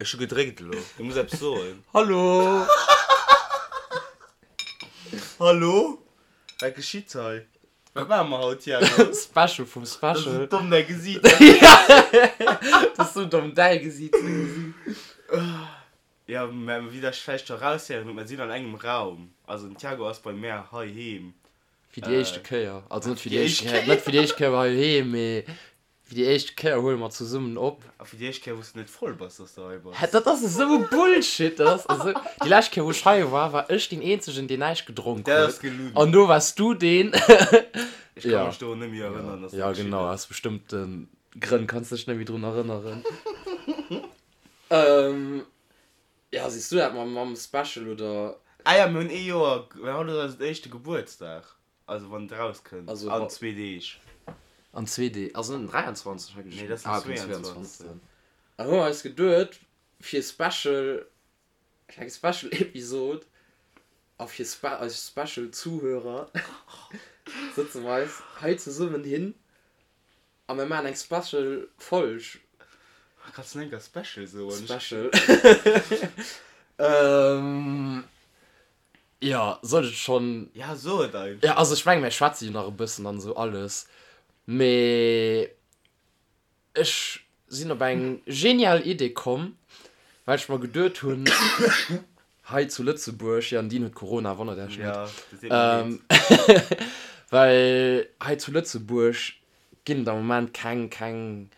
Ech hu gedréckt elo. Du muss eppes soen. Hallo! Hallo? Wat geschitt hei? Wat maache mer haut, Thiago? Special vum Special. Dat ass esou domm, däi Gesiit. Dat ass esou domm, däi Gesiit ze gesinn. Jo, mä wéi der vläicht scho eraushéieren hutt, mer sinn an engem Raum. Also den Thiago ass bei mär heiheem. Fir déi éischte Kéier. Also net fir déi éischt Kéier, net fir déi éischt Kéier heiheem, mee Fir déi éischt Kéier huele mer zesummen op. A fir déi éischt Kéier, wou s de net voll bass, dass de hei bass. Hä, dat ass esou e Bullshit! Dat ass esou. Déi lescht Kéier, wou ech hei war, war ech deen Eenzegen, deen näischt gedronk Dat huet. ass gelunn. An do waars du deen. Ech ka Ja. mech dorun net méi erënneren, dass dat Ja, geschitt genau, ass. aus bestëmmte Grënn kanns de dech net méi drun erënneren. Ja, siehs du dat mam, mam Special oder? Ah ja, mir hunn ee Joer, mir haut ass eisen éischte Gebuertsdag. Also wann et rauskënnt, Also an zwee Deeg. An zwee Deeg, also net den 23 hei Nee, dat ass den Ah, okay, 22. 22. An hu mer eis geduet, fir Special, fir eng Special Episode a fir spe eis Special Zuhörer sëtze mer eis hei zesummen hin a mir maachen eng Special Folg. Kanns du nach eng Kéier Special soen? Special. Ähm. Jo, soll ech et schonn? Ja, so et einfach. Jo, also ech mengen, mir schwätze jo nach e bëssen an esou alles, mee ech sinn op eng genial Idee komm, well ech mer geduet hunn, hei zu Lëtzebuerg, jo, Nadine huet Corona, wonnert Iech net, well hei zu Lëtzebuerg ginn et am Moment keng, keng,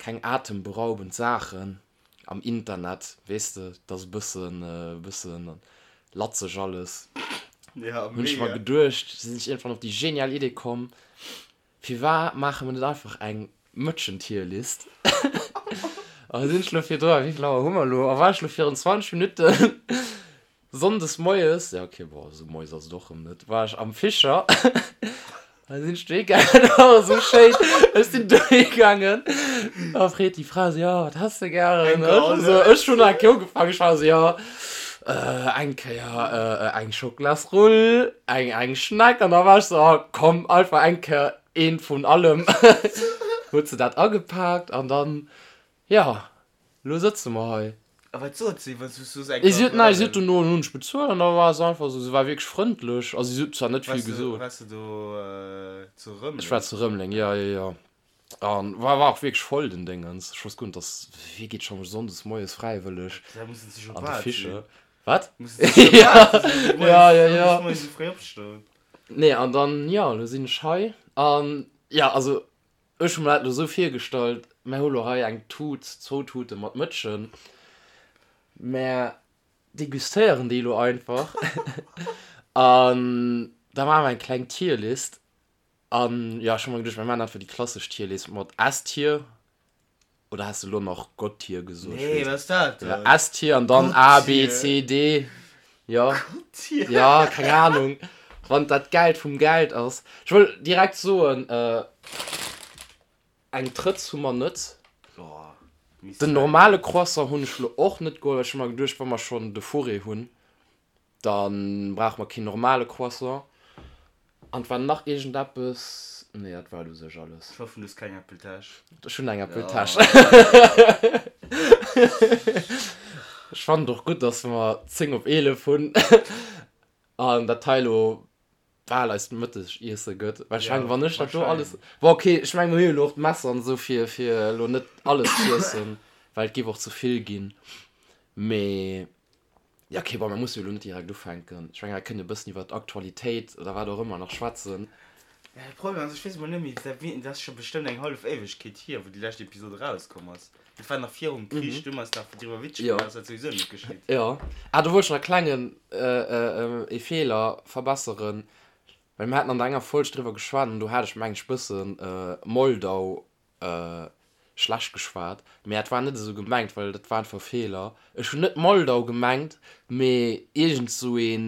keng atemberaubend Saachen. Am Internet, weess de, dat ass e bëssen, e bëssen latzeg alles. Ja, Hunn ech mer mega. geduecht, sinn ech iergendwann op déi genial Idee komm, firwat maache mer net einfach eng Mëtschen-Tierlist? A sinn ech lo virdru, wéi vill Auer hu mer elo? A war ech lo virun 20 Minutten Sonndes moies, ja ok, bon, esou moies ass et och rëm net, war ech am Fischer a sinn ech dohi gaangen, dat war esou schéin, ech sinn dohi gaangen a freet déi Fra esou, jo, wat häss de gären? Ech esou, ech hunn eng Kéier ugefaangen, ech war esou, jo, eng Kéier eng Schocklasrull, eng eng Schneck an da war ech esou, oh komm, einfach eng Kéier eent vun allem. Huet se dat agepaakt an dann, jo, Lo sëtze mer hei. A wat sot si, wann s du soos eng Si huet, nei, si huet dono, hunn ech bezuelt an da war se einfach esou, si war wierklech frëndlech, also si huet zwar net vill gesot. Waars de do zu Rëmeleng? Ech war zu Rëmeleng, jo, jo, jo. An war, war och wierklech voll den Déngens. Ech wousst guer net, dass, wee geet scho sonndes moies fräiwëlleg Da mussen se an de Fischer? Wat? Mussen se scho bal sinn, Ja, ja, ja. sonndes moies esou fréi opstoen. Nee, an dann, jo, lo sinn ech hei an, jo, also Ech hu mer dat elo esou virgestallt, mär hu lo hei eng Tut, zwou Tute mat Mëtschen, mär degustéieren déi elo einfach an da maache mer eng kleng Tierlist. An jo, ech hu mer geduecht, mir maachen einfach déi klassesch Tierlist mat S-Tier, oder has de elo nach Gott-Tier gesot? Nee, wat ass dat dann? Ja, S-Tier an dann A, B, C, D, jo. Gott-Tier? Jo, keng Ahnung, wann dat Geld vum Geld ass. Ech wëll direkt soen, eng Trëtz hu mer net. Den normale Croissant hunn ech lo och net geholl, well ech hu mer geduecht, wa mer schonn de Fourré hunn, da brauche mer keen normale Croissant. An et war nach iergendeppes, nee, dat war et u sech alles. Ech hoffen, du hues keng Äppeltäsch. Ech hunn eng Äppeltäsch. Ech fannen et och gutt, dass mer 10 op 11 hunn an dat hei elo bal eist Mëttegiesse gëtt. Well ech mengen, wann ech dat do alles. Bon, ok, ech mengen, mir hu jo elo och d'Messer an esou, fir, fir elo net alles z'iessen, well et géif och ze vill ginn. Mee, ja, ok, bon, mir musse jo elo net direkt ufänken. Ech mengen, mir kënnen e bëssen iwwer d'Aktualitéit oder wat och ëmmer nach schwätzen. Ja, de Problem ass, ech weess emol net méi, dat ass scho bestëmmt eng hallef Éiwegkeet hier, wou déi lescht Episod erauskomm ass. Dat war nach virum Krich, du hues nach driwwer Witzer Jo. gemaach, ass dat souwisou net geschitt. Jo. Ah, do wollt ech nach e klengen ee Feeler verbesseren, well mir haten an der enger Folg driwwer geschwat an do hat ech meng ech bëssen Moldau schlecht geschwat, mee dat war net esou gemengt, well dat war einfach e Feeler. Ech hunn net Moldau gemengt, mee iergend sou ee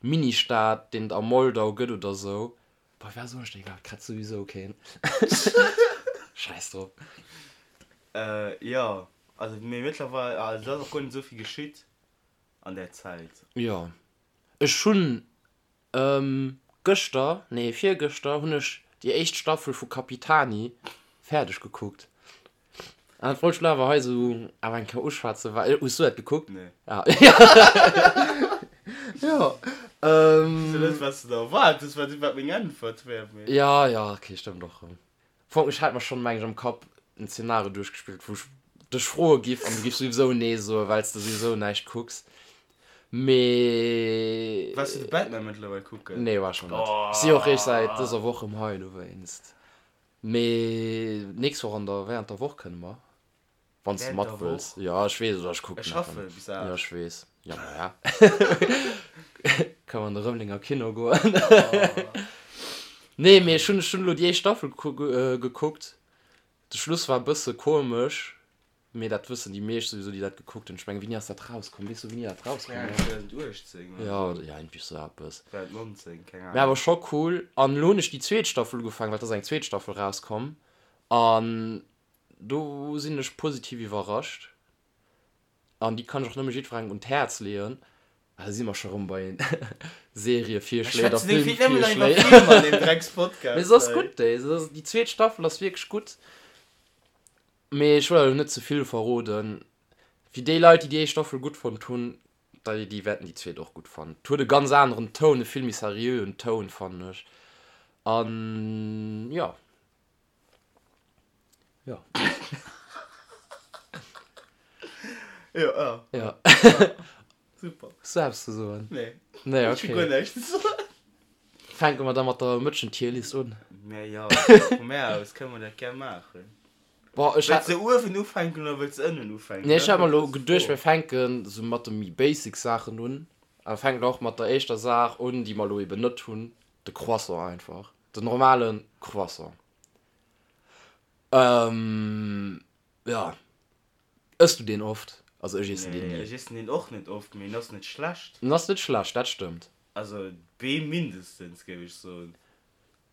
Ministaat, deen et a Moldau gëtt oder sou. Boah, war soll ech déi grad? Kritt souwisou keen. Scheiss drop. Äh, jo, also mee mëttlerweil, also et ass och guer net esou vill geschitt an där Zäit. Jo, ech hunn gëschter, nee virgëschter hunn ech déi éischt Staffel vu Capitani fäerdeg gekuckt. An dat wollt ech lo awer hei esou awer eng Kéier uschwätzen, well, hues du dat gekuckt? Nee. Ah, ja. Ähm. Weess jo net, wat s de da erwaart hues, wat, wat meng Äntwert wär, mee. Ja, ja, okay, stëmmt och erëm. Fong, ech hat mer schonn, meng ech, am Kapp en Zeenario duerchgespillt, wou ech dech froe giff an du giffs souwisou nee soen, well s de souwisou näischt kucks. Mee. Waars du de Batman mëttlerweil kucken? Nee, war ech nach net. Ech si och eréischt säit dëser Woch erëm hei dowéinst. Mee nächst Woch an der, während der Woch kënne mer, wann s de mat wëlls. Jo, ech weess, oder ech kucken Ech schaffe bis 8. Jo, ech weess. Jo, maja. Kënne mer an de Rëmelenger Kino goen. Nee, mee ech hunn, ech hunn elo déi éischt Staffel gekuckt. De Schluss war e bësse komesch. Mee dat wëssen déi meescht souwisou, déi dat gekuckt hunn. Ech mengen, wéini ass dat rauskomm? Weess du, wéini dat rauskomm ass? 2018 oder Ja, ja, iergendwéi sou eppes. 2019, keng Mee awer Ahnung. scho cool. An elo hunn ech déi zweet Staffel ugefaangen, well et ass eng zweet Staffel rauskomm. An do sinn ech positiv iwwerrascht. An déi kann ech och nëmme jiddwerengem un d'Häerz leeën. Ah, da si mer scho rëm bei Serievirschléi oder Filmvirschléi. Mee se ass gutt, déi. Déi zweet Staffel ass wierklech gutt. Mee ech wëll elo net ze vill verroden. Fir déi Leit, déi déi éischt Staffel gutt fonnt hunn, déi déi wäerten déi zweet och gutt fannen. Et huet e ganz aneren Toun, e vill méi seriöen Toun, fannen ech. An jo. Jo. Jo, jo. Jo. Super. Hues du eppes ze soen? Nee. Nee, Ech hu okay. guer näischt ze soen. Fänke mer da mat der Mëtschen-Tierlist un? Mä jo, vu mär aus kënne mer dat gär maachen. Boah, ech Wëlls hat. de uewen ufänken oder wëlls de ënnen ufänken? Nee, ech Dat hat mer ass elo déi geduecht, Fro. mir fänken sou mat de méi basic Saachen un. A fänken och mat der éischter Saach un, déi mer elo eben net hunn, de Croissant einfach. Den normale Croissant. Ähm, ja. Ëss du deen oft? Also ech iessen deen Nee, ni. ech iessen deen och net oft, mee en ass net schlecht. En ass net schlecht, dat stëmmt. Also B mindestens, géif ech soen.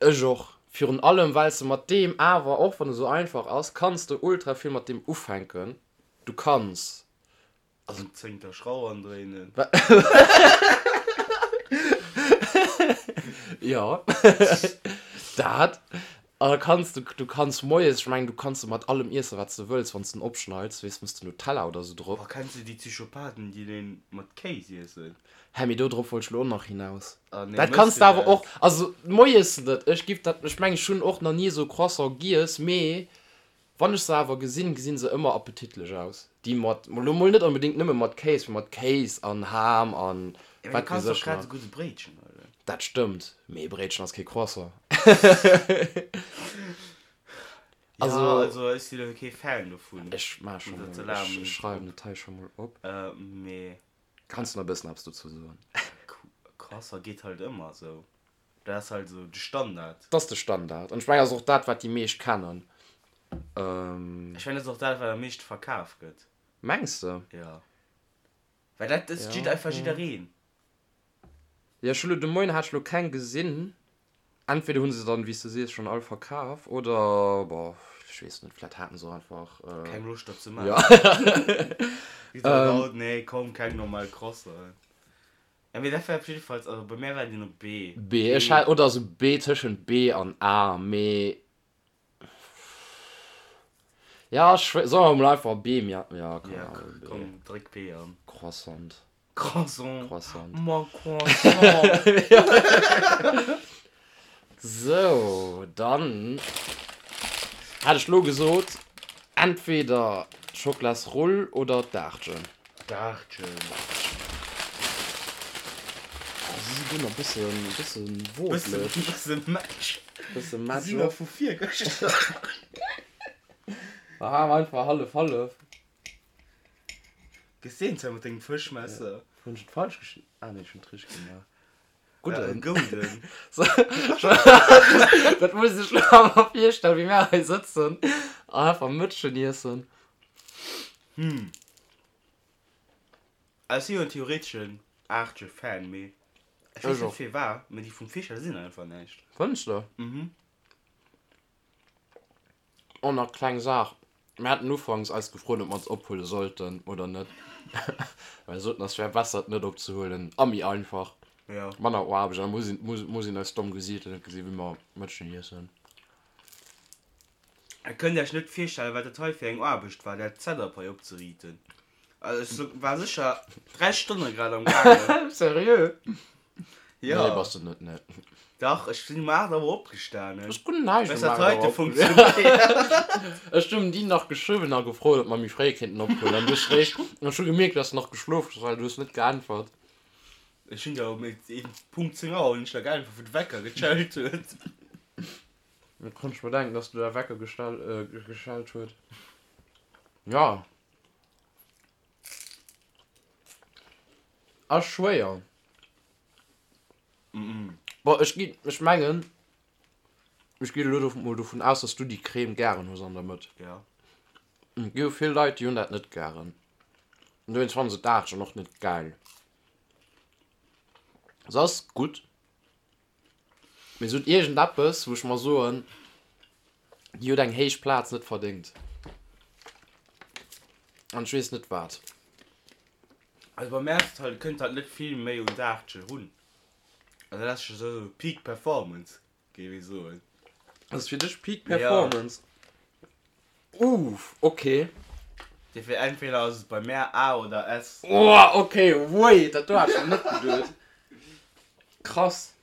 Ech och. Virun allem well s de mat deem awer, och wann e sou einfach ass, kanns de ultra vill mat deem ufänken. Du kanns Also en zéngter Schrauw andréinen. Jo, dat. An da kanns du, du kanns moies, ech mengen, du kanns e mat allem iessen, wat s de wëlls, wann s de en opschneids, weess, mëss de Nutella oder sou drop. Oh, kenns de déi Psychopathen, déi deen mat Kéis iessen? Hä, mee do drop wollt ech lo och nach hinaus. Ah nee, Dat mëss kanns de de awer dat? och, also moies net, ech giff dat, ech mengen, ech hunn och nach ni esou Croissant giess, mee Wann ech se awer gesinn, gesinn se ëmmer appetitlech aus. Déi mat, lo mol net onbedéngt nëmme mat Kéis, mee mat Kéis an Ham an Ja, mee du wat kanns weess och ech grad nach. esou gutt e Bréitchen huelen. Dat stëmmt, mee e Bréitchen ass kee Croissant. Ja, Also, also ech sinn elo kee Fan dovun, ech maach scho mat der mol, ech Salami schreiwen drop. et hei scho mol op. Mee Kanns du nach e bëssen eppes dozou soen? Croissant geet halt ëmmer esou. Dat ass halt esou de Standard. Dat ass de Standard. An ech mengen, dat ass och dat, wat déi meescht kennen. Ech mengen, dat ass och dat, wat am meeschte verkaf gëtt. Mengs de? Jo. Well dat ësst Ja, einfach ja. jiddereen. Jo, ech hu lo de Moien hat ech lo keng gesinn. Entweder hu se dann, wéi s de sees, schonn all verkaf oder, boah, ech weess net, vläit haten se och einfach. Keng Loscht dat ze Ja. maachen. Wéi se haut, nee, komm, keng normal Croissant. Ja, mee dat war op jiddefalls, also bei mär war deen op B. B, ech hat, oder sou B, tëschent B an A, mee ja, ech, solle mer mol einfach B, mir, ja, keine Ja, Ahnung, B. komm, dréck B an. Croissant. Croissant. Croissant. Ma Croissant. Sou, dann hat ech lo gesot, entweder d'Schoklasrull oder d'Aartchen. D'Aartchen. Oh, si si guer nach bëssen, bëssen wotlech. Bëssen Match. Bëssen Match. Si nach vu virgëschter. Aha, einfach hallef, hallef. Gesehen zwar mat dengem Fëschmesser. Hunn ech et falsch geschnidden? Ah nee, ech hunn et richteg gemaach. Gudden. Gouden. Dat muss ech lo awer virstellen, wéi mär hei sëtzen an einfach Mëtschen iessen. Hm. Ech si jo en theoreteschen Aartje-Fan, mee ech weess net firwat, mee déi vum Fischer sinn einfach näischt. Fënns de? Mhm. Och nach kleng Saach, Mir haten ufanks eis gefrot, ob mer se ophuele sollten oder net. Well mir soten, es wär besser, et net opzehuelen a méi einfach, Jo. manner Aarbecht. An da muss een, muss, muss een eis domm Gesiichter net gesinn, wéi mer Mëtschen iessen. Der kënnt Iech net virstellen, wat dat hei fir eng Aarbecht war, dat Setup hei opzeriiten. Also ech war sécher 3 Stonne grad am gaangen. Seriö? Jo. Nee, bass de net, nee. Dach, ech sinn um 8 Auer opgestanen. Ech hunn näischt um 8 Auer opgestanen. Ech hunn déi nach geschriwwen a gefrot, ob mer méi fréi kéinten ophuelen. An du hues réischt, ech hu gemierkt, dass de nach geschlof hues, well du hues net geäntwert. Ech hunn der um Punkt 10 Auer hunn ech der geäntwert, wou de Wecker geschellt huet. Da konnt ech mer denken, dass du der Wecker geschellt huet. Ja. Ass schwéier. Bon, ech ginn, ech mengen, ech ginn elo mol dovun aus, dass du déi Crème gären hues an der Mëtt. Ja. Et gi jo vill Leit, déi hunn dat net gären. An dowéinst fannen se d'Aartchen och net gäil. Se ass gutt. Mee se huet iergendeppes, wou ech mer soen, déi huet eng héich Plaz net verdéngt. An ech weess net wat. Also bei mär ass et halt, et kënnt halt net vill méi un d'Aartchen run. Also dat ass scho sou Peak Performance, géif ee soen. Ass fir dech Peak Performance? Uff, ok. Dofir entweder ass et bei mär A oder S. Oh, ok, wait, dat do hat ech net geduet. Krass.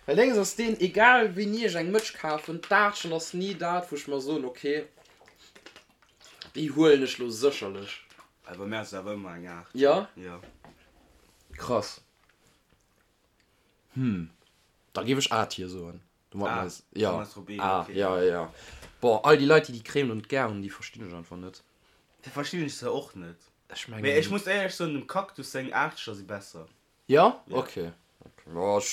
Well déngs ass deen, egal wéini ech eng Mëtsch kafen, d'Aartchen ass ni dat, wou ech mer soen, ok, déi huelen ech lo sécherlech. Also bei mär ass et awer ëmmer eng Aartchen. Jo? Jo. Krass. Hm, da géif ech A-Tier soen. Ah, ja. Ah, ja, ja, ja. Boah, all déi Leit, déi déi Crème lo net gär hunn, déi verstinn ech einfach net. Déi verstinn ech se och net. Ech mengen. Mee ech muss éierlech soen, dem Cactus seng Aachteger si besser. Jo? Ok. Jo, ech,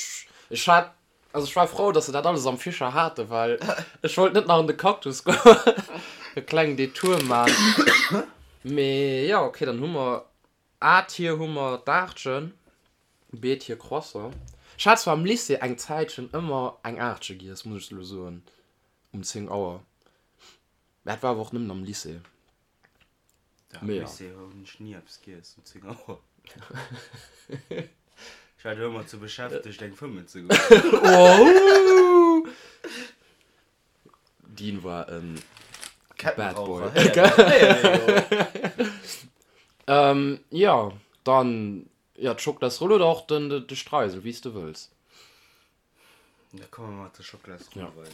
ech hat, also ech war frou, dass se dat alles am Fischer haten, well ech wollt net nach an de Cactus goen, e klengen Detour man. Mee jo, ok, dann hu mer A-Tier hu mer d'Aartchen. Beet hir Croissant. Ech hat zwar am Lycée eng Zäitchen ëmmer eng Aartche giess, muss ech elo soen, um 10 Auer. Mä dat war awer och nëmmen am Lycée. Am Lycée hunn ech ni eppes giess um 10 Auer. Ech war do ëmmer ze beschäftegt, eng fëmmen ze goen. Wow! Dean war en Bad Boy. Jo, dann Jo, d'Schoklasroll oder och den de Streisel, wéi s de wëlls. Da komme mer mat der Schoklasroll weider.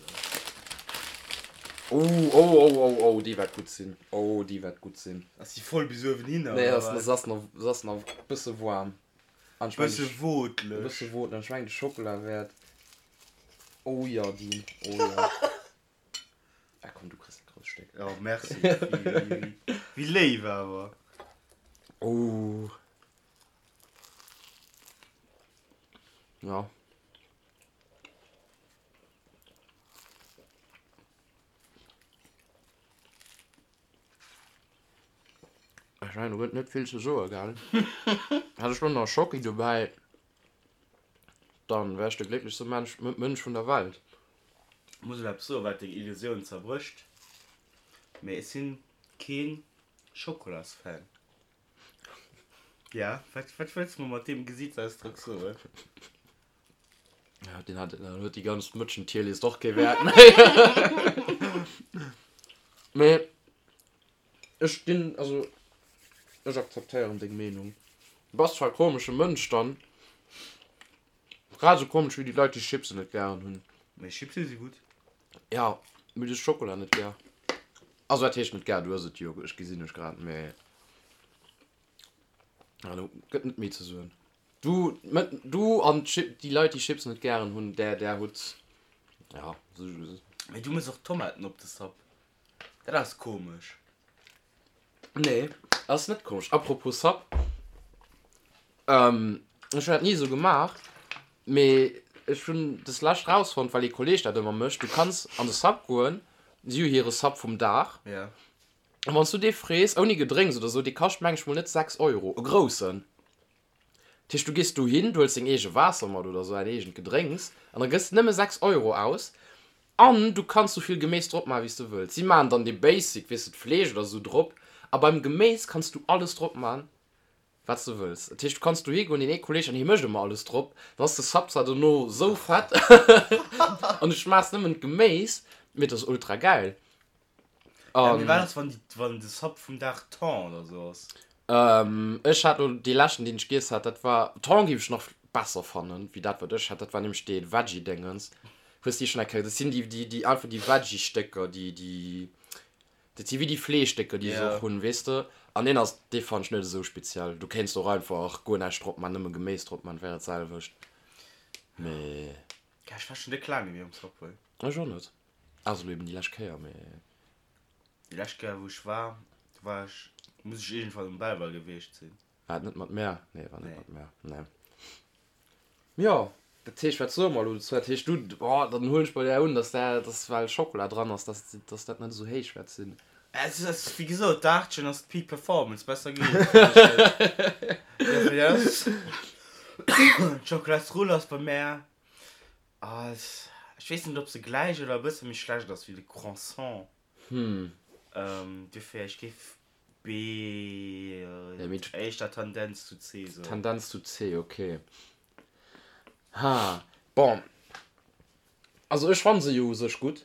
Oh, oh, oh, oh, oh, déi wäert gutt sinn. Oh, déi wäert gutt sinn. Ass déi voll bis uewen hinner, Nee, oder wat? Se ass nach, se ass nach e bësse waarm. An ech mengen, Bësse e wootleg. bësse wootleg. An ech mengen, de Schockela wäert, oh jo, Dean, oh jo. Ah komm, du kriss e grousst Stéck. Oh, merci. Wéi léif awer. Oh. Ja. Ech mengen, do gëtt net vill ze soe, gell? Hätt ech lo nach Schocki dobäi, dann wär ech de glécklechste Mensch, Mënsch vun der Welt. Muss elo eppes soen wat deng Illusioun zerbrécht, mee ech sinn keen Schokolasfan. Ja, wat wat wëlls de mer mat deem Gesiitsausdrock soen? Ja, deen hat, dann huet déi ganz Mëtschen-Tierlist och kee Wäert méi. Mee ech ginn, also ech akzeptéieren deng Meenung. Du bass zwar e komesche Mënsch dann. Grad esou komesch wéi déi Leit déi Chipsen net gären hunn. Mee Chipse si gutt. Ja, mee du hues Schokola net gär. Also wat heescht net gär, du ëss et jo, ech gesinn dech grad, mee ja do gëtt net méi ze soen. Du, du an déi Leit déi Chipsen net gären hunn, där där hutt ja. Mee du mëss och Tomaten op de Sub, dat ass komesch. Nee, ass net komesch. Apropos Sub, ech hunn dat ni esou gemaach, mee ech hunn des lescht rausfonnt, well ee Kolleg dat ëmmer mécht, du kanns an de Sub goen, si hu hire Sub vum Dag, an wann s du dee frees, ouni Gedrénks oder esou, dee kascht meng ech mol net 6 Euro, e groussen. Dat heescht, du gees dohin, du huels deng eege Waasser mat oder esou, däin eegent Gedrénks, an da gëss de nëmme 6 Euro aus. An du kanns sou vill Geméis drop maachen, wéi s de wëlls. Si maachen dann dee Basic, weess de, d'Fleesch oder sou drop. A beim Geméis kanns du alles drop maachen, wat s de wëlls. Dat heescht, du kanns dohi goen, deen ee Kolleeg, an hie mécht ëmmer alles drop, dann ass de Sub zwar dono sou fett an du schmaachs nëmmen d'Geméis. Mee et ass ultra gäil. Ja, mee wat ass, wann déi, wann de Sub vum Dag Thon oder sou ass? Ech hat lo dee leschten, deen ech giess hat, dat war, Thon géif ech nach besser fannen, wéi dat, wat ech hat. Dat war nämlech dee Veggie-Déngens. Hues de déi schonn eng Kéier, dat sinn déi, déi, déi einfach déi Veggie-Stécker, déi, déi, dat si wéi déi Fleeschstécker, déi se och hunn, weess de? An deen ass, dee fannen ech net esou speziell. Du kéints och einfach guer näischt drop man, nëmme Geméis drop man, wär dat selwecht. Mee. Ja, ech war schonn déck laang net méi um Subway. Ech och net. Also elo eben déi lescht Kéier, mee. Déi lescht Kéier wou ech war, do war ech, muss ech iergendwann um Belval gewiescht sinn. War et net mat mär? Nee, war net mat mär, nee. Jo, dat heescht, wat soe mer elo dozou? Dat heescht, du, oh, dann huelen ech bei där un, dass där, dass well Schokola dran ass, dass, dass dat net esou héich wäert sinn. Es ass, wéi gesot, d'Aartchen ass d'Peak Performance, besser geet et net. Dofir ass d'Schokolasrull ass bei mär Ass, ech weess net ob se gläich oder e bësse méi schlecht ass wéi de Croissant. Hm. Dofir, ech géif B, éischter Tendenz zu C soen. Tendenz zu C, ok. Ha, bon, also ech fanne se jo u sech gutt,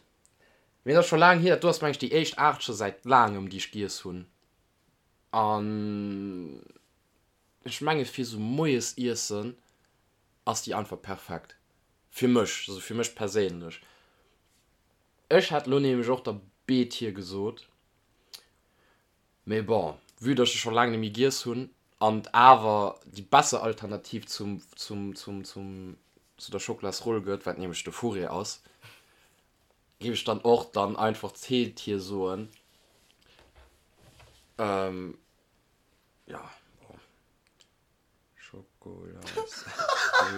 mee et ass scho laang hier, dat do ass meng ech déi éischt Aart scho säit laangem déi ech giess hunn an ech menge fir sou moies iessen ass déi einfach perfekt. Fir mech, also fir mech perséinlech. Ech hätt lo nämlech och der B-Tier gesot, mee bon, vue dass ech se scho laang net méi giess hunn an et awer déi besser Alternativ zum, zum, zum, zum, zu der Schokolasroll gëtt, wat nämlech de Fourré ass, géif ech dann och dann einfach C-Tier soen. Jo, bon. Schokolas.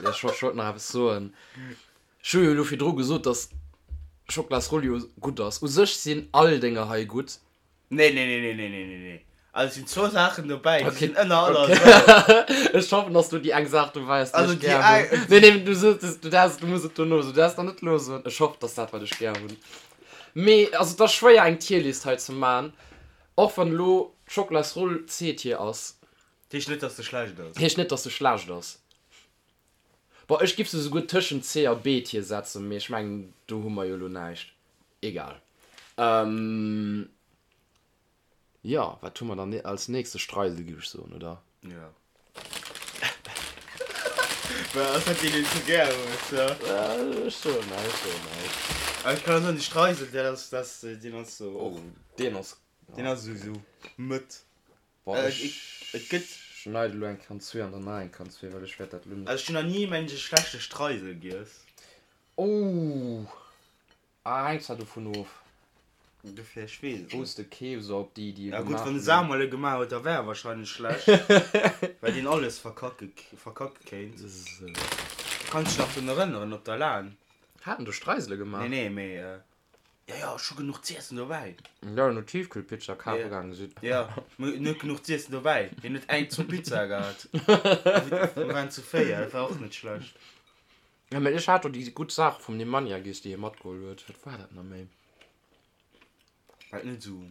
Ech wollt nach eppes soen. Ech hu jo elo virdru gesot, dass Schokolasroll jo gutt ass. U sech sinn all Dénger hei gutt. Nee, nee, nee, nee, nee, nee, nee, nee. Also et sinn zwou Saachen dobäi, déi sinn ënner aller Sau. Ech hoffen, dass du déi eng Saach dobäi ass, déi ech gär hunn. Nee, nee, du soos, du däerfs, du muss et dono soen. Du däerfs nach net elo soen. Ech hoffen, dass dat, wat ech gär hunn. Mee, also et ass schwéier, eng Tierlist hei ze man, och wann elo d'Schokolasroll C-Tier ass. Heescht net dass se schlecht ass. Heescht net dass se schlecht ass. Bon ech giff se souguer tëschent C a B Tier setzen, mee ech mengen do hu mer jo lo näischt. Egal. Jo wat hu mer dann als nächstes? Streisel giff ech soen, oder? Jo. Well ass dat deen deen s du gär hues, jo? Ech soen näischt, ech soen näischt. Awer ech kann och soen de Streisel dat ass dat deen ass sou och. Deen ass. Deen ass sou sou mëtt. Boah, ech et gëtt. Schneide lo eng Kan zwee an dann nach eng Kan zwee, well ech wäert dat lo net. Also ech hunn nach ni mengen ech e schlechte Streisel giess. Ouh, ah hänkt zwar dovun of. Dofir, ech weess et Wou s de keefs oder ob déi déi e Ja gutt, gemaach wann de hunn. Samuel e gemaach huet, da wär e wahrscheinlech schlecht, well deen alles verkacke verkacke kéint. Sou. Kanns dech nach drun erënneren op der Lan? Haten do Streisele gemaach? Nee, nee, mee Jo, jo, ech hu genuch z'iessen dobäi. Jo, no Tiefkühlpizza kafe gaange sidd. Jo, mee en huet genuch z'iessen dobäi. Hien huet eng, zwou Pizzae gehat. Mir waren zu 4, dat war och net schlecht. Jo, mee ech hat do déi gutt Saache vum Nemanja giess, déi hie matgeholl huet. Wat war dat nach méi? War et net esou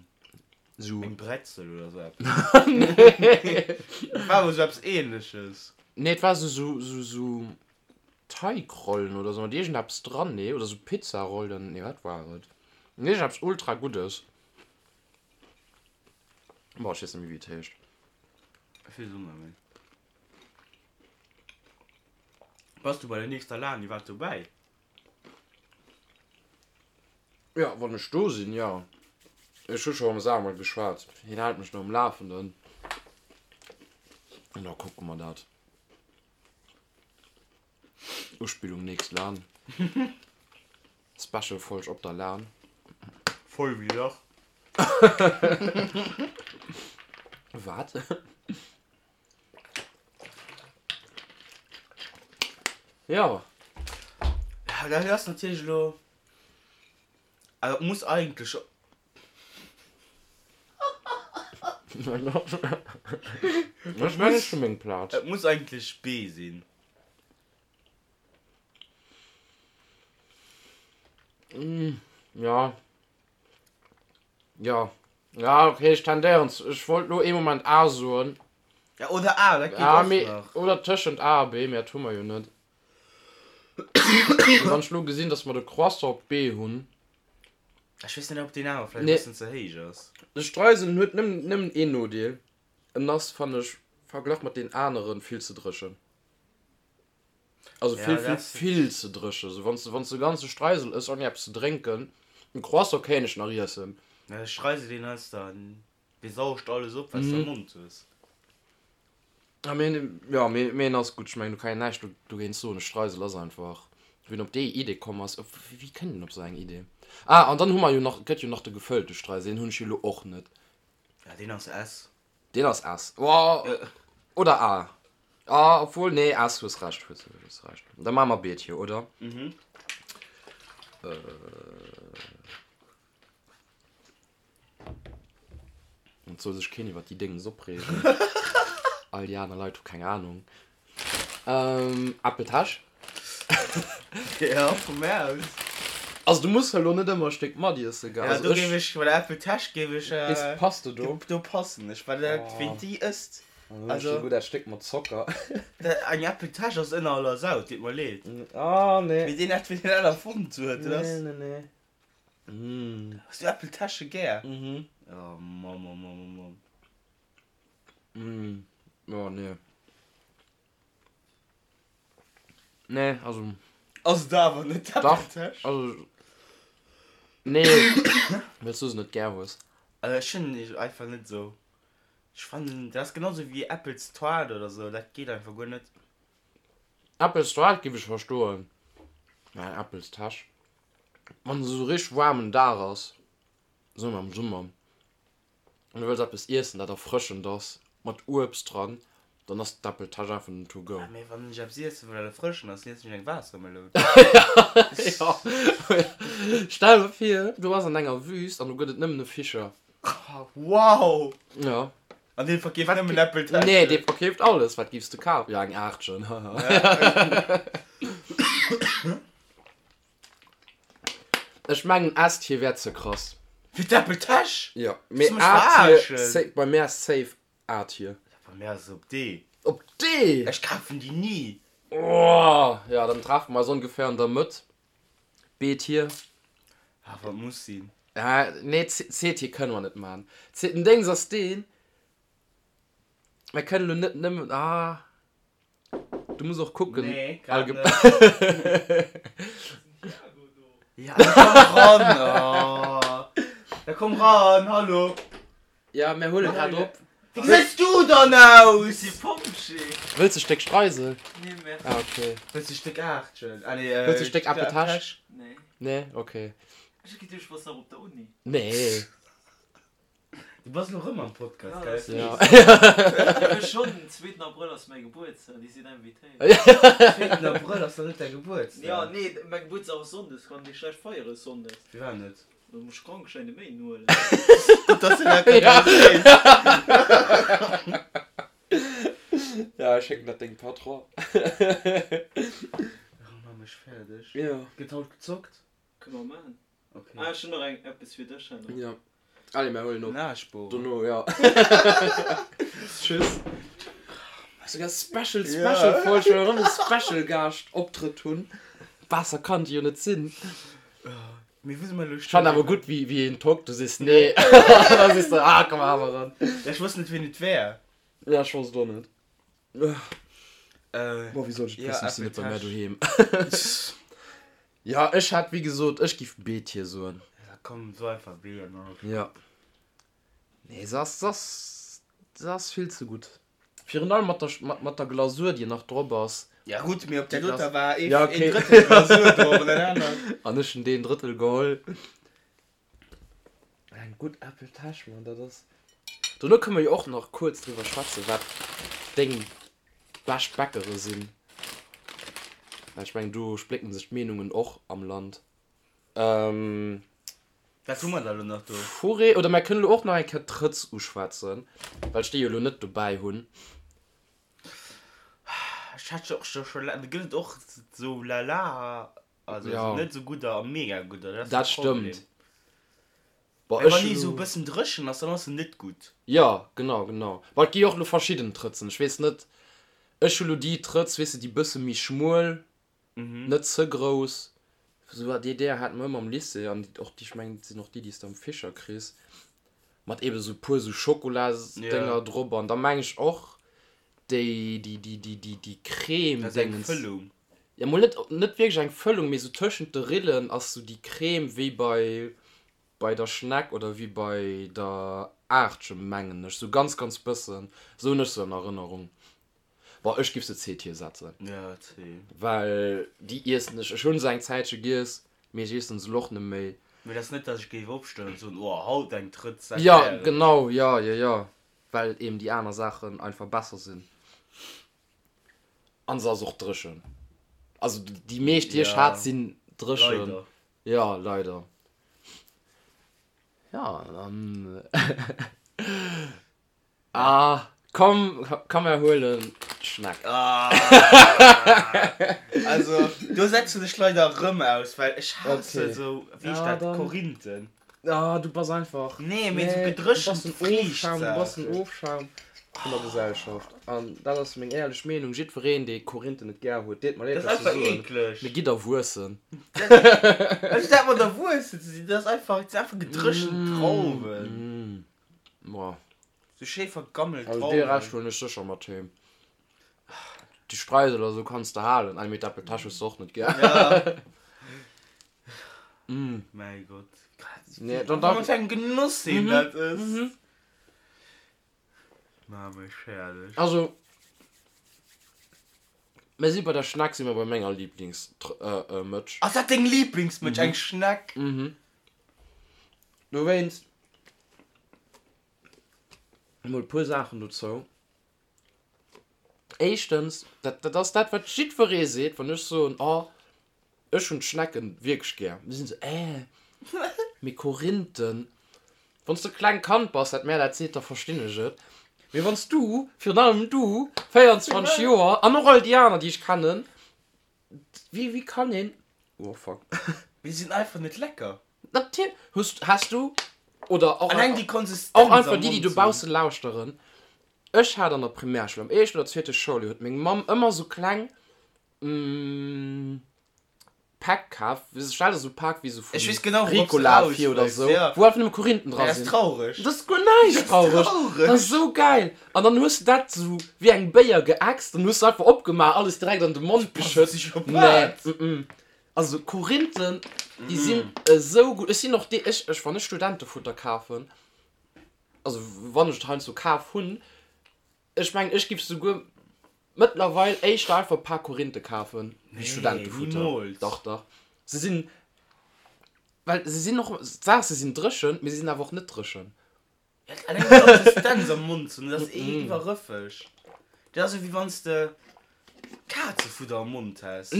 Esou. eng Bretzel oder esou eppes? Nee. Et war awer esou eppes Ähnleches. Nee, et war esou, esou, esou. Teigrollen oder sou mat iergendeppes dran, nee, oder sou Pizzarollen, nee, wat war et? Iergendeppes ultra Guddes. Boah, ech weess net méi wéi et heescht. Ech weess och net méi. Bass du bei der nächster LAN iwwerhaapt dobäi? Jo, wann ech do sinn, jo. Ech hu scho mam Samuel geschwat, hien hält mech do um Lafenden an da kucke mer dat. Uspillung nächst Lan. Special Folg op der Lan. Voll wéi Lach. Wat? Jo. Ja, dat ass natierlech elo. Also et muss eigentlech. Ech mengen ech hu meng Plaz. Et muss eigentlech B sinn. Ja. Ja. Ja, okay, ech tendéieren zu, ech wollt lo ee Moment A soen. Ja, oder A, dat geet och nach. Oder tëschent A a B, mee dat hu mer jo net. Wann ech lo gesinn, dass mer de Croissant op B hunn. Ech weess net ob deen awer vläicht e bëssen ze héich ass. De Streisel en huet nëmmen een Nodeel, en ass fannen ech verglach mat den aneren vill ze dréchen. Also vill vill vill ze dréchen. Sou wanns de wanns de ganze Streisel ëss ouni eppes ze drénken, en Croissant kéint ech nach iessen. Ja de Streisel deen ass dann, dee saugt alles op wat s de am Mond hues. Ja mee ja mee mee en ass gutt, ech mengen do kann een näischt dogéint soen, e Streisel ass einfach, wien op déi Idee komm ass, op wéi kënnt een op sou eng Idee? Ah an dann hu mer jo nach, gëtt jo nach de gefëllte Streisel, deen hunn ech jo elo och net. Ja deen ass S. Deen ass S. Oh, oder A. Ah, obwohl, nee, S, hues Recht, hues, hues Recht. Da maache mer B hier, oder? Mhm. Äh. Et soll sech keen iwwer déi Déngens opreegen. All déi aner Leit hu keng Ahnung. Ähm, Äppeltäsch. Ja, vu mär aus. Also du muss elo net ëmmer e Stéck matiessen, gell? Ja, Also do ech. géif ech, bei der Äppeltäsch géif ech. Weess, passt de do? Do passen ech, well dat, ween déi ësst. Dann hunn ech souguer dat Stéck mat Zocker. Dat, eng Äppeltäsch ass ënner aller Sau, et deet mer leed. Ah, nee. Mee deen hat, ween dat erfonnt huet, dat ass. Nee, nee, nee. Mm. Hues du Äppeltäsche gär? Mhm. Oh Mamm, oh Mamm, oh Mamm. Mm. Oh, nee. Nee, also. Ass et awer net d'Äppeltäsch? Dach, also. Nee, well s du se net gär hues. Also ech hunn déi einfach net esou. Ech fannen, dat ass genau sou wéi Äppelstoart oder sou, dat geet einfach guer net. Äppelstoart giff ech verstoen, mä eng Äppelstäsch, wann et esou richteg waarmen Dag ass, soe mer am Summer, an du wëlls eppes iessen dat erfrëschend ass, mat Uebst dran, dann ass d'Äppeltäsch einfach den to go. Ja, mee wann ech eppes iessen wëll dat erfrëschend ass, dann iessen ech eng Waassermeloun. Ja, stell der vir, du bass an enger Wüst an do gëtt et nëmmen e Fischer. Wow! Ja. An dee verkeeft nëmmen Äppeltäschen? Nee, dee verkeeft alles. Wat giffs de kafen? Ja, eng Aartchen, haha. Ech mengen S-Tier wär ze krass. Fir d'Äppeltäsch? Jo, mee A-Tier, bei mär ass safe A-Tier. Bei mär ass et op D. Op D? Ech kafen déi ni. Oh, ja, dann treffen mer eis ongeféier an der Mëtt. B-Tier. Ah, wat muss sinn. Ah, nee, C-Tier kënne mer net man. C, den Déngs ass deen, mer kënnen elo net nëmmen, ah. Du muss och kucken. Nee, grad net. Ja, da komm ran. Oh. Da komm ran, hallo. Ja, mir huele grad op. Wéi gesäis du dann aus? Si Pompjee. Wëlls de Stéck Streisel? Nee, merci. Ah, okay. Wëlls de Stéck Aartchen? Ah, nee, Wëlls de Stéck Äppeltäsch? Nee. Nee, okay. Ech hu geduecht, du bass nach op der Uni. Nee. Du bass elo rëm am Podcast, gell? Ja. Jo, schonn, den zweeten Abrëll ass mäi Gebuertsdag, Dir sidd invitéiert. Zweeten Abrëll ass doch net däi Gebuertsdag? Jo, nee, mäi Gebuertsdag ass Sonndes, kann dir schlecht feiere Sonndes. Firwat net? Da muss ech Krankschäin de Méinden huelen. Gutt, dass du dat grad erwähns. Ja, ech schécken dat dengem Patron. Oh, maach mech fäerdeg. Jo. Gëtt haut gezockt? Kënne mer maachen. Okay. Ah, ech hunn nach eng eppes fir dech herno. Ja. Allez, mir huelen op. Nachbohren. Dono, ja. Tschüss. Souguer Special, Special Ja. Folg, well mer erëm e Special Gaascht Optrëtt hunn. Besser kann et jo net sinn. Mee wou si mer elo Ech fannen awer gutt, wéi, wéi een tockt, du sees nee. An da sees de, ah, komm awer eran. Ja, ech wosst net, wien et wär. Ja, ech wosst et och net. Äh, Boah, wéi soll ech et ja, wëssen, ech sinn net bei mär Äppeltäsch. doheem. Ja, ech hätt, wéi gesot, ech giff B-Tier soen. Ja, komm, so einfach B an dann. Ja. Nee, se ass, se ass, se ass vill ze gutt. Virun allem mat der, mat, mat der Glasur, déi nach drop ass. Ja gutt, mee op där doter war ee, Ja, okay. een Drëttel Glasur drop an dat anert. An ech hunn deen Drëttel geholl. Eng gutt Äppeltäsch, Mann, dat ass. Dono kënne mer jo och nach kuerz driwwer schwätzen, wat deng bescht Bäckere sinn. Well ech mengen, do splécken sech d'Meenungen och am Land. Ähm. Wat hu mer da lo nach do? Fourré, oder mer kënnen elo och nach eng Kéier d'Trëtz uschwätzen, well ech déi jo elo net dobäi hunn. Ech hat jo och scho scho laang, do gëtt et och sou lala, also Ja. net sou gudder a mega gudder, dat ass Dat de Problem. stëmmt. Bon, Well ech wann hunn déi sou e elo. bëssen dréchen ass, dann ass se net gutt. Jo, genau, genau. Bon, et gi jo och elo verschidden Trëtzen, ech weess net, ech hu lo déi Trëtz, weess de, déi bësse méi schmuel, net ze grouss. Sou déi Ideeër hate mer ëmmer am Lycée an och déi, ech mengen, et sinn och déi, déi s de am Fischer kriss, mat eebe sou puer sou Schokolasdénger drop an da meng ech och déi, déi, déi, déi, déi, déi Crème Dat ass eng Déngens. Fëllung. Jo, mol net, net wierklech eng Fëllung, mee sou tëschent de Rillen ass sou déi Crème wéi bei, bei der Schneck oder wéi bei der Aartche, mengen ech, sou ganz, ganz bëssen, sou hunn ech se an Erënnerung. Bon, ech giff se C-Tier setzen. Ja, C. Well déi iessen ech, ech hunn se eng Zäitche giess, mee ech iessen se elo och net méi. Mee dat ass net, dass ech géif opstoen an soen, oh, haut eng Trëtz, dat Ja, wär et. genau, ja, jo, jo, well eben déi aner Saachen einfach besser sinn. An se ass och dréchen. Also déi meescht, déi ech Ja, hat, sinn dréchen. leider. Ja, leider. Ja, dann. Ah, komm, komm mer huelen d'Schneck. Ah, also do setzen ech leider erëm aus, well ech hasse Okay. sou, wéi heescht Ja, dat, dann. Korinthen. Ah, du bass einfach. Nee, mee sou Nee, du bass gedréchent den Ofschaum, du bass den Friichtsaachen. Ofschaum vun der Gesellschaft. An dat ass meng éierlech Meenung. Jiddwereen, dee Korinthen net gär huet, deet mer leed, Dat ass dat ze einfach soen, eekleg. mee gitt erwuessen. Also dat mat erwuessen ze sinn, dat ass einfach, dat sinn einfach gedréchent Drauwen. Boah. Sou schéi vergammelt Also dee Rescht huelen ech sécher mat heem. Déi Streusel oder sou kanns de halen. Ah mee d'Äppeltäsch hues de och net gär. Ja. Mäi Gott. Nee, dann da. Wat fir eng Genoss een dat ësst. Ma mech herrlech. Also mir si bei der Schneck si mer bei menger Lieblingsmëtsch. Ass dat deng Lieblingsmëtsch, eng Schneck? Mhm. Dowéinst emol e puer Saachen dozou. Éischtens, dat, dat ass dat, wat jiddweree seet, wann ech soen, oh, ech hunn d'Schnecken wierklech gär. Da sinn se, äh, mee Korinthen. Wann s de e klengt Kand bass, dat mär dat seet, da verstinn ech et. Mee wann s du, virun allem du, 24 Joer, an och all déi aner, déi ech kennen, wéi, wéi kann een, oh fuck. Mee se sinn einfach net lecker. Natierlech hues, has du, oder och, Alleng déi Konsistenz och einfach am déi, déi Mond dobausse lauschteren, ech hat an der Primärschoul, am éischten oder zweete Schouljoer, huet meng Mamm ëmmer sou kleng Päck kaf, stell der sou Pak wéi sou vu Ech weess genau, wourops du Ricola raus vir oder wëlls, sou, ja. wou einfach nëmme Korinthen dra Dat ass sinn. traureg. Dat ass guer näischt Dat ass traureg, dat traureg. ass sou geil. An dann hues de dat sou wéi eng Béier geäxt, dann hues de einfach opgemaach, alles direkt an de Mond geschëtt. Psychopath. Nee, mm. Also Korinthen, déi sinn esou gutt. Ech sinn och dee, ech, ech, wann ech Studentefutter kafen, also wann ech et heiansdo kaf hunn, ech mengen, ech giff souguer mëttlerweil éischter einfach e paar Korinthe kafen, wéi Nee, Studentefutter. nimools. Dach, dach. Se sinn, well se sinn och, d'Saach, se sinn dréchen, mee se sinn awer och net dréchen. Alleng déi Konsistenz am Mond ze hunn, dat ass iwwerrëffeg. Dat ass esou wéi wann s de Kazefudder am Mond häss.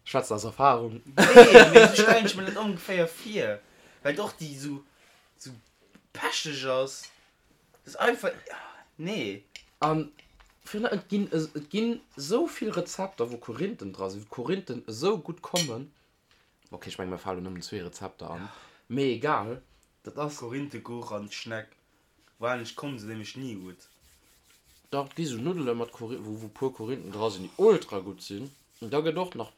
Schwätzt aus Erfahrung. Nee, mee esou stellen ech mir dat ongeféier vir, well och déi esou esou pecheg ass. Dat ass einfach, nee. An virun allem, et ginn, et ginn esou vill Rezepter, wou Korinthen dra sinn, wou Korinthen esou gutt kommen. Ok, ech mengen mir falen nëmmen zwee Rezepter an, mee egal, dat ass. Korinthekuch an d'Schneck, wahrscheinlech kommen se nämlech ni gutt. Dach, et gi sou Nuddele mat Kori wou wou puer Korinthen dra sinn, déi ultra gutt sinn. An da gëtt och nach,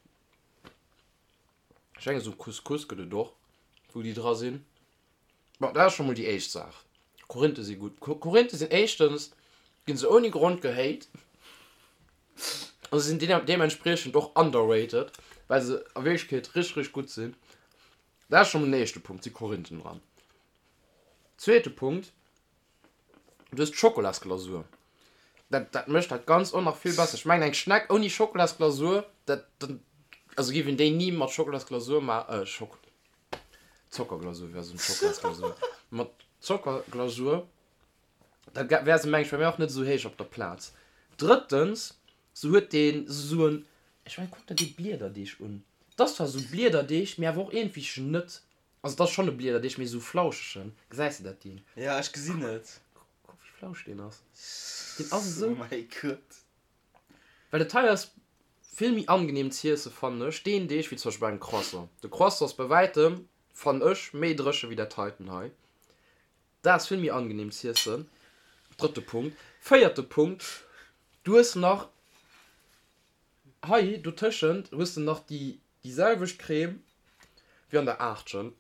ech mengen sou Couscous gëtt et och, wou déi dra sinn. Bon, dat ass scho mol déi éischt Saach. Korinthe si gutt. Korinthe sinn éischtens, ginn se ouni Grond gehate a se sinn deementspriechend och underrated, well se a Wierklechkeet richteg, richteg gutt sinn. Dat ass scho mol den éischte Punkt, si Korinthen dran. Zweete Punkt, Du hues d'Schokolasglasur. Dat, dat mécht dat Ganzt och nach vill besser. Ech mengen, eng Schneck ouni Schokolasglasur, dat, dat, also géif een déi ni mat Schokolasglasur ma, äh, Schok, Zockerglasur wär esou Schokolasglasur, mat Zockerglasur, da wär se, meng ech, bei mir och net esou héich op der Plaz. Drëttens, se huet deen esou en, ech mengen, kuck der dee Bliederdeeg un. 't ass zwar esou Bliederdeeg, mee awer och iergendwéi net. Also et ass schonn e Bliederdeeg, mee esou flauschegen. Gesäis de dat Ding? Ja, ech gesinn et. Kuck wéi flausch deen ass. Deen ass esou. Oh mäi Gott. Well et hei ass vill méi angenehm z'iesse fannen ech deen Deeg wéi zum Beispill bei engem Croissant. De Croissant ass bei wäitem, fannen ech, méi dréche wéi dat heiten hei. Dat ass vill méi angenehm z'iessen. Drëtte Punkt. Véierte Punkt, du hues nach. Hei dotëschent hues de nach déi déi selwecht Crème wéi an der Aachtchen.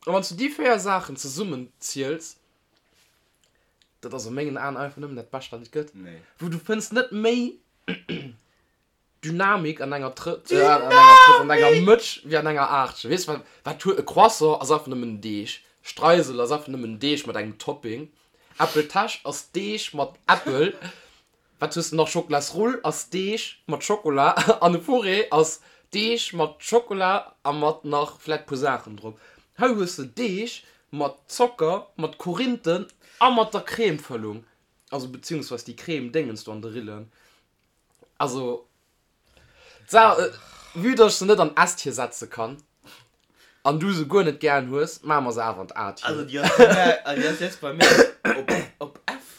A wann s du déi 4 Saachen zesummen ziels, dat ass a mengen Aen einfach nëmmen dat Bescht wat et gëtt. Wou du fënns net méi Dynamik an enger Trëtt, an enger Trëtt, an enger Mëtsch wéi an enger Aachtchen. Weess wat, wat huet e Croissant ass einfach nëmmen Deeg, Streisel ass einfach nëmmen Deeg mat engem Topping, Äppeltäsch ass Deeg mat Äppel. Wat hues de nach? Schokolasrull ass Deeg mat Schokola an e Fourré ass Deeg mat Schokola a mat nach vläit puer Saachen drop. Hei hues de Deeg mat Zocker, mat Korinthen a mat der Cremefëllung, also beziehungsweis déi Creme Déngens do an de Rillen. Also d'Saach, vue dass ech se net an S-Tier setze kann an du se guer net gären hues, maache mer se awer an d'A-Tier. Also déi ass bei mär, also déi ass jetzt bei mär op, op F.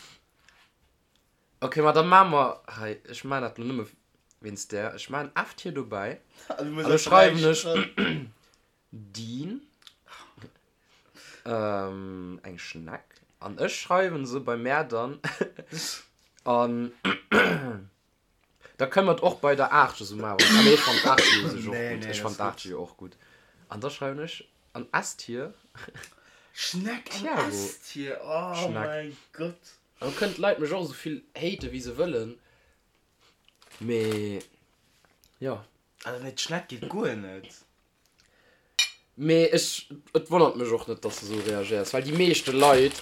Ok, ma da maache mer hei, ech maachen dat lo nëmme wéinst där, ech maachen F hier dobäi an da schreiwen ech Dean, eng Schneck, an ech schreiwen se bei mär dann an da kënne mer et och bei der 8 esou maachen. Ah nee, ech fannen d'Aacht jo u sech och gutt, ech fannen d'Aacht jo och gutt. An da schreiwen ech an S-Tier Schneck an S-Tier, oh mäi Gott. An kënnen d'Leit mech och esou vill haten wéi se wëllen, mee jo. Also nee, d'Schneck geet guer net. Mee ech, et wonnert mech och net dass de esou reagéiers, well déi meeschte Leit,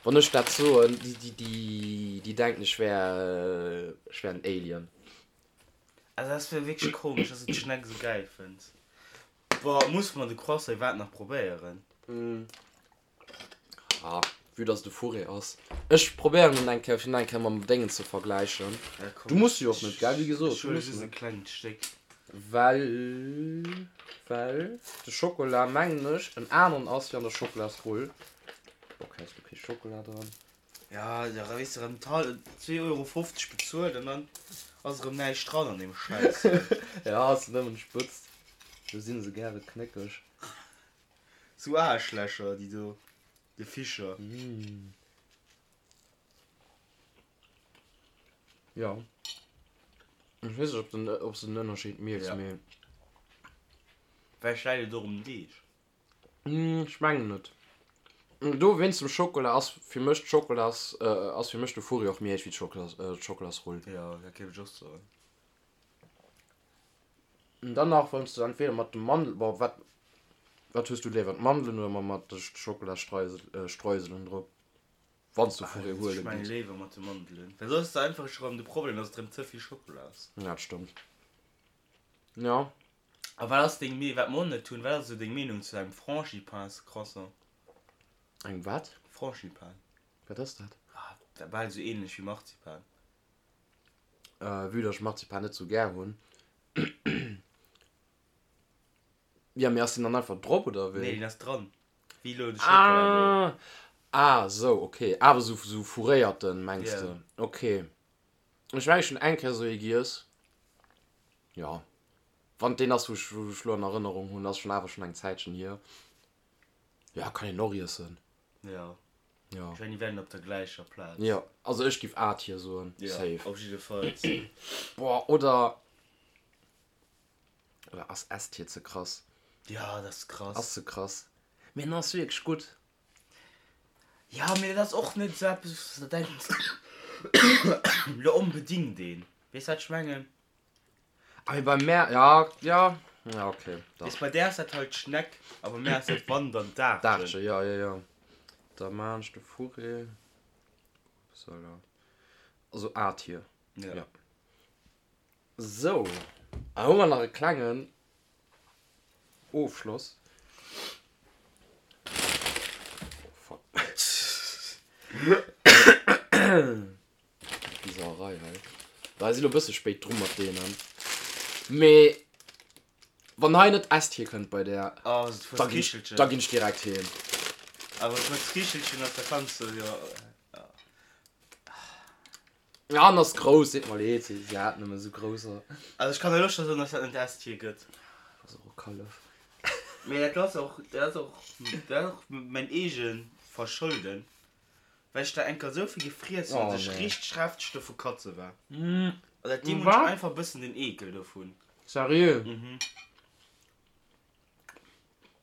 wann ech dat soen, déi, déi, déi denken ech wär, ech wär en Alien. Also dat wär wierklech komesch, dass du d'Schneck esou gäil fënns. Boah, muss mer de Croissant iwwerhaapt nach probéieren? Ah, vue dass et e Fourré ass. Ech probéieren en eng Kéier, fir en eng Kéier mam Déngen ze vergläichen. Ja, komm, Du muss jo och net, gell? Wéi gesot, ech du huele muss just e net. klengt Stéck. Well, well de Schokola, mengen ech, en aneren ass wéi an der Schokolasrull. Ok, ass do kee Schokola dran? Ja, da weess de erëm 2,50 Euro bezuelt an dann ass erëm näischt dran an deem Schäiss. Ja, ass nëmmen d'Spëtzt. Do si se gäre knéckeg. Sou Aarschlächer déi do, de Fischer. Jo. Ech weess net ob den ob s de den Ënnerscheed mierks, mee. Vläicht läit et och um Deeg. Ech mengen net. Do wéinst dem Schokola ass fir mech d'Schokolas ass fir mech de Furri och méi héich wéi d'Schokolas d'Schokolasrull. Jo, dat géif ech och soen. An dann nach wann s de entweder mat de Mandel, bon wat wat hues du léiwer, d'Mandelen oder mat de Schokolasstreuselen drop? Wann s du vu Ech huele mengen gees. léiwer mat de Mandelen, well soss hues de einfach scho rëm de Problem, dass et rëm ze vill Schokola ass. Ja, dat stëmmt. Jo. A wat ass deng Mee, wat mer och net hunn, wat ass esou deng Meenung zu engem Frangipans-Croissant? Engem wat? Frangipane. Wat ass dat? Ah, dat bal esou ähnlech wéi Marzipan. Vue dass ech Marzipan net sou gär hunn. Jo, mee ass deen dann einfach drop oder Nee, wéi? deen ass dran. Wéi elo de Schockela do. Ah, ah sou, ok. Awer sou, sou fourréierten, mengs Ja. de? Ok. Ech mengen, ech hunn eng Kéier sou ee giess. Jo. Wann et deen ass, wou ech, wou ech lo an Erënnerung hunn, ass schonn awer schonn eng Zäitchen hier. Jo, kann een och iessen. Jo. Jo. Ech mengen, déi wären op der gläicher Plaz. Jo, also ech giff A-Tier soen, Jo, safe. op jiddefalls. Boah, oder, oder ass S-Tier ze krass? Ja, dat ass krass. Ass ze krass. Mee en ass wierklech gutt. Ja, mee dat ass och net esou eppes, wou s de denks, lo onbedingt een. Weess wat ech mengen? Ah, mee bei mär, ja, ja, ja, ok, dach. Weess, bei där ass dat halt d'Schneck a bei mär ass dat wann dann d'Aarchen. D'Aarchen, ja, ja, ja. Da maan ech de Fourré. Upsala. Also A-Tier. Ja. Ja. Sou, a hu mer nach e klengen Ofschloss. Oh, fuck. Déi Sauerei hei. Bah, si lo bësse spéit dru mat deenen. Mee wann hei net S-Tier kënnt bei där, Oh, se da ginn ech, da ginn ech direkt heem. Awer mat Skichelchen ass, da kanns de jo. Ja, an ass grouss, seet mer leed, si hat nëmme sou grousser. Also ech kann elo scho soen, dass dat net S-Tier gëtt. Ass och e Kallef. Mee dat ass och, dat ass och, dat ass och mäin eege Verschulden. Well ech der enker esou vill gefriess hunn, Oh dass ech nee. richteg hefteg dovu katze war. Also dat deem hunn ech einfach e bëssen den Eekel dovun. Seriö? Mhm.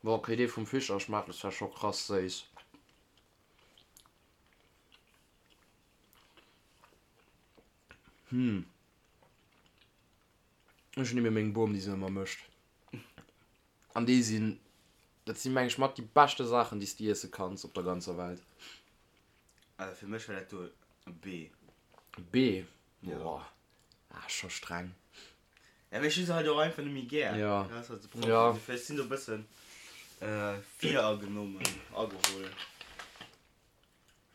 Boah, okay, dee vum Fischer schmaacht zwar scho krass séiss. Hm. Ech hunn ebe meng Bom, déi se ëmmer mécht. An déi sinn, dat si meng ech mat déi beschte Saachen, déi s de iesse kanns op der ganzer Welt. Also fir mech war dat do e B. B? Boah, ah, scho streng. Ja, mee ech hu se halt och einfach net méi gär. Ja. Dat ass halt de Problem. Ja. Ech sinn do e bëssen viragenommen, ageholl.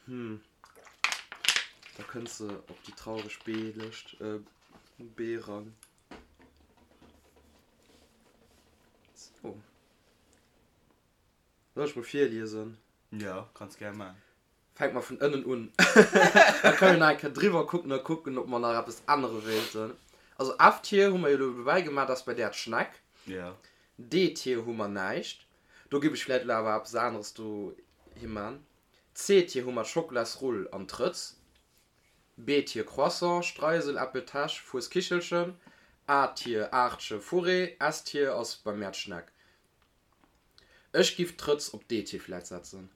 Hm. Da kënns de op déi traureg B-Lëscht, B-Rang. So. Soll ech mol virliesen? Jo, kanns gär man. Fänke mer vun ënnen un. Da kënne mir nach eng Kéier driwwer kucken a kucken, ob mer nach eppes ännere wéilten. Also F-Tier hu mer jo elo dobäi gemaach, dat ass bei där d'Schneck. Jo. D-Tier hu mer näischt. Do giff ech vläit elo awer eppes aneres dohi man. C-Tier hu mer d'Schokolasrull an d'Trëtz. B-Tier Croissant, Streisel, Äppeltäsch, Fueskichelchen. A-Tier Aartche, Fourré. S-Tier ass bei mär d'Schneck. Ech giff d'Trëtz op D-Tier vläit setzen.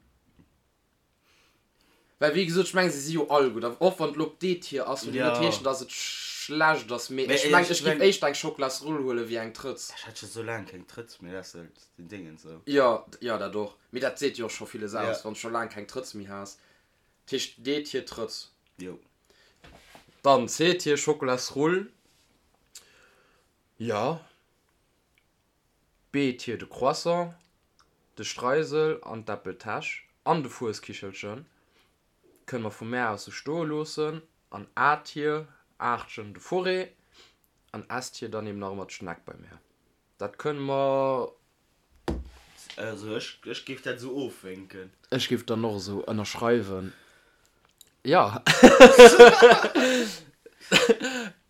Well wéi gesot, ech mengen se si jo all gutt. A och wann et elo op D-Tier ass, wëll jo net heeschen, datt et schlecht ass. Mee ech mengen, ech giff éischter eng Schokolasrull huelen wéi eng Trëtz. Ech hat scho sou laang keng Trëtz méi, dat ass halt den Déngens esou. Jo, jo dat och. Mee dat seet jo och scho villes aus, wann s scho laang keng Trëtz méi has. Dat heescht D-Tier Trëtz. Jo. Dann C-Tier Schokolasrull. Jo. B-Tier de Croissant, de Streisel an d'Äppeltäsch an de Fueskichelchen kënne mer vu mär aus sou stoe loossen an A-Tier, Aartchen, de Fourré an S-Tier dann eben nach ëmmer d'Schneck bei mär. Dat kënne mer. Also ech, ech géif dat esou ofwénken. Ech géif dann och esou ënnerschreiwen, jo.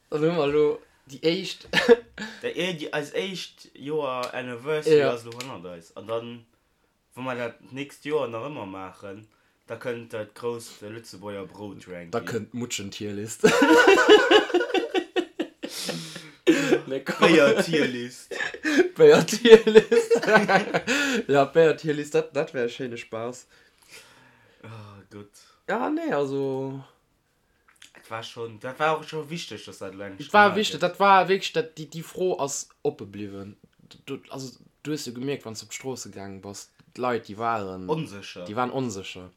Dann hu mer elo déi éischt. Déi, déi, eis éischt Joer Anniversary ass elo hannert eis. An dann, wa mer dat d'nächst Joer nach ëmmer maachen, da kënnt dat grousst Lëtzebuerger Brout-Ranking. Da kënnt d'Mutschen-Tierlist. Nee, komm. D'Béier-Tierlist. D'Béier-Tierlist. Ja, d'Béier-Tierlist, dat, dat wär e schéine Spaass. Oh Gott. Ja, nee, also. Dat war schon, dat war och scho wichteg, dass dat elo eng Et war wichteg, dat war wierklech, dat, déi, déi Fro ass oppe bliwwen. Du, also du hues jo gemierkt, wann s de op d'Stroosse gaange bass, d'Leit, déi waren. Onsécher. Déi waren onsécher.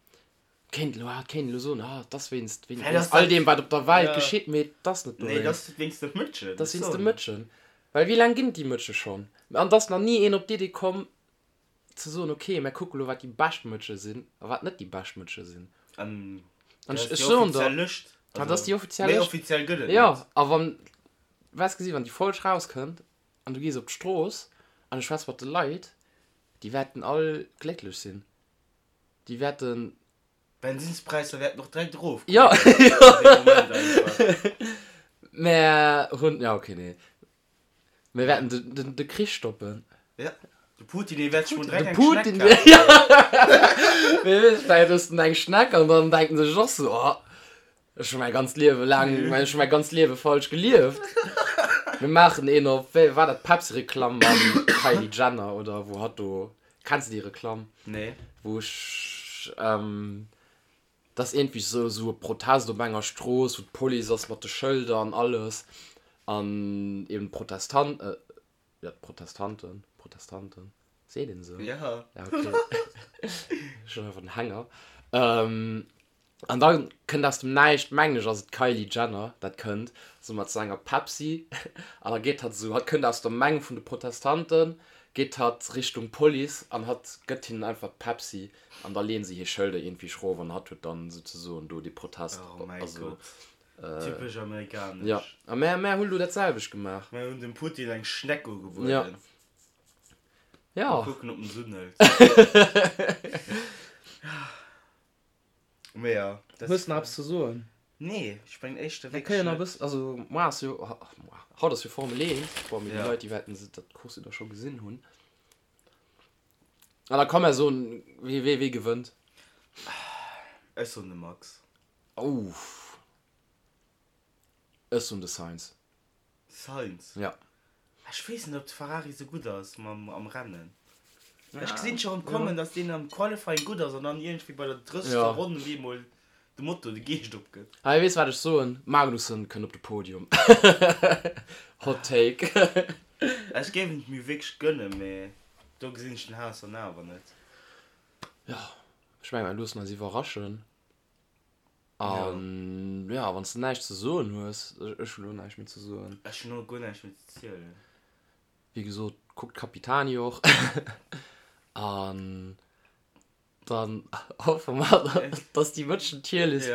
Kéint elo, ah, kéint elo soen, ah, et ass wéinst, wéinst Well ass all dat, deem, wat op der Welt ja. geschitt, mee et ass net Nee, et dowéinst. ass wéinst de Mëtschen. Et ass wéinst de Mëtschen. Well wéi laang ginn et déi Mëtsche schonn? An et ass nach ni een op d'Idee komm, ze soen, ok, mär kucke lo wat déi bescht Mëtsche sinn a wat net déi bescht Mëtsche sinn. An An dat ech ass déi soen der, offiziell Lëscht. dat ass déi offiziell Méi Lëscht. offiziell gëtt et Jo, net. a wann, waars gesi wann déi Folg rauskënnt an du gees op d'Strooss an du schwätz mat de Leit, déi wäerten all glécklech sinn. Déi wäerten. D'Bensinspräisser wäerten och direkt erofgoen. Jo, jo. Dee Moment einfach. Mär hunn, ja ok, nee. Mir wäerten de, de, de Krich stoppen. Ja, de Putin, dee wäert sech mol direkt De eng Putin, Schneck kafen. ja. Wie weess, vläicht ësst en eng Schneck an dann denkt en sech och sou, oh, ech hu mäi ganzt Liewe laang, ech hu mäi ganzt Liewe falsch gelieft. Mir maachen een op, wéi war dat, d'Pepsi-Reklamm mam Kylie Jenner oder wou hatt do, kenns de déi Reklamm? Nee. Wou ech, ähm, Et ass iergendwéi sou sou e Protest op enger Strooss, wou d'Police ass mat de Schëlder an alles an eben d'Protestan-, jo d'Protestanten, Protestanten, seet een esou? Ja. Ja ok, ech hunn einfach den Hänger. An da kënnt aus dem Näischt, mengen ech ass et d'Kylie Jenner, dat kënnt sou mat sou enger Pepsi an da geet hatt esou, hatt kënnt aus der Meng vun de Protestanten, geet hatt Richtung Police an hatt gëtt hinnen einfach d'Pepsi An da leeën se hir Schëlder iergendwéi schrof an hatt huet dann souzesoen do dee Protest. Oh mäi Also, Gott. Typesch amerikanesch. ja. A mär, mär hunn elo dat selwecht gemaach. Mär hunn dem Putin eng Schneck ugebueden. Ja. Ja. Mol kucken, ob en se unhëlt. Mee ja. Hues de nach eppes ze soen? Nee, ech mengen éischter Mir wierklech kënnen nach e net. bëssen, also moar ass jo, moar, haut ass jo Formel 1. Bon, mee déi Ja. Leit, déi wäerten se dat Course jo da scho gesinn hunn. An da komm mer soen, wee, wee, wee gewënnt. Ech soen de Max. Ouff. Ech soen de Sainz. Sainz? Ja. Ech weess net, ob de Ferrari sou gutt ass mam am Rennen. Ech gesinn scho rëm kommen, dass deen am Qualifying gutt ass an dann iergendwéi bei der 30. Ronn op eemol de Moto de Geescht opgëtt. Hei, weess wat ech soen? Magnussen kënnt op de Podium. Hot Take. Ech géif en et mir wierklech gënnen, mee do gesinn ech den Haas dann awer net. Jo, ech mengen, mir loossen eis iwwerraschen. An ja, wann s de näischt ze soen hues, ech hunn elo näischt méi ze soen. Ech hunn och guer näischt méi ze zielen. Wéi gesot, kuckt Capitani och. An dann hoffe mer, dass déi Mëtschen Tierlist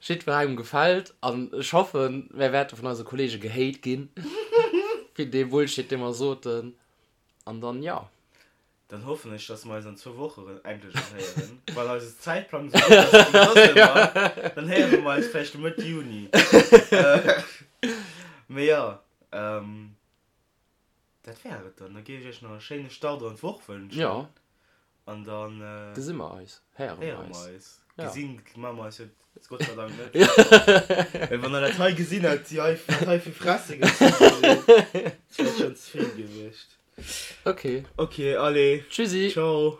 jiddwerengem gefält. An ech hoffen, mär wäerte vun eise Kollege gehate ginn, fir dee Bullshit, dee mer soten. An dann, jo. Dann hoffen ech, dass mer eis an zwou Woche rëm endlech erëm héieren. Wann eise Zäitplang esou gutt ass wéi soss ëmmer, dann héiere mer eis vläicht Mëtt Juni. Mee jo, dat wär et dann. Da géif ech iech nach e schéine Start an d'Woch wënschen. Jo. An dann. Gesi mer eis, héiere mer eis. Gesinn maache mer eis jo Gott sei Dank net. Well wann der dat hei gesinn hätt, déi hei, wat hei fir Fresse gezunn gi sinn, dat wär schonn ze vill gewiescht. Okay. Okay, allez. Tschüssi. Ciao.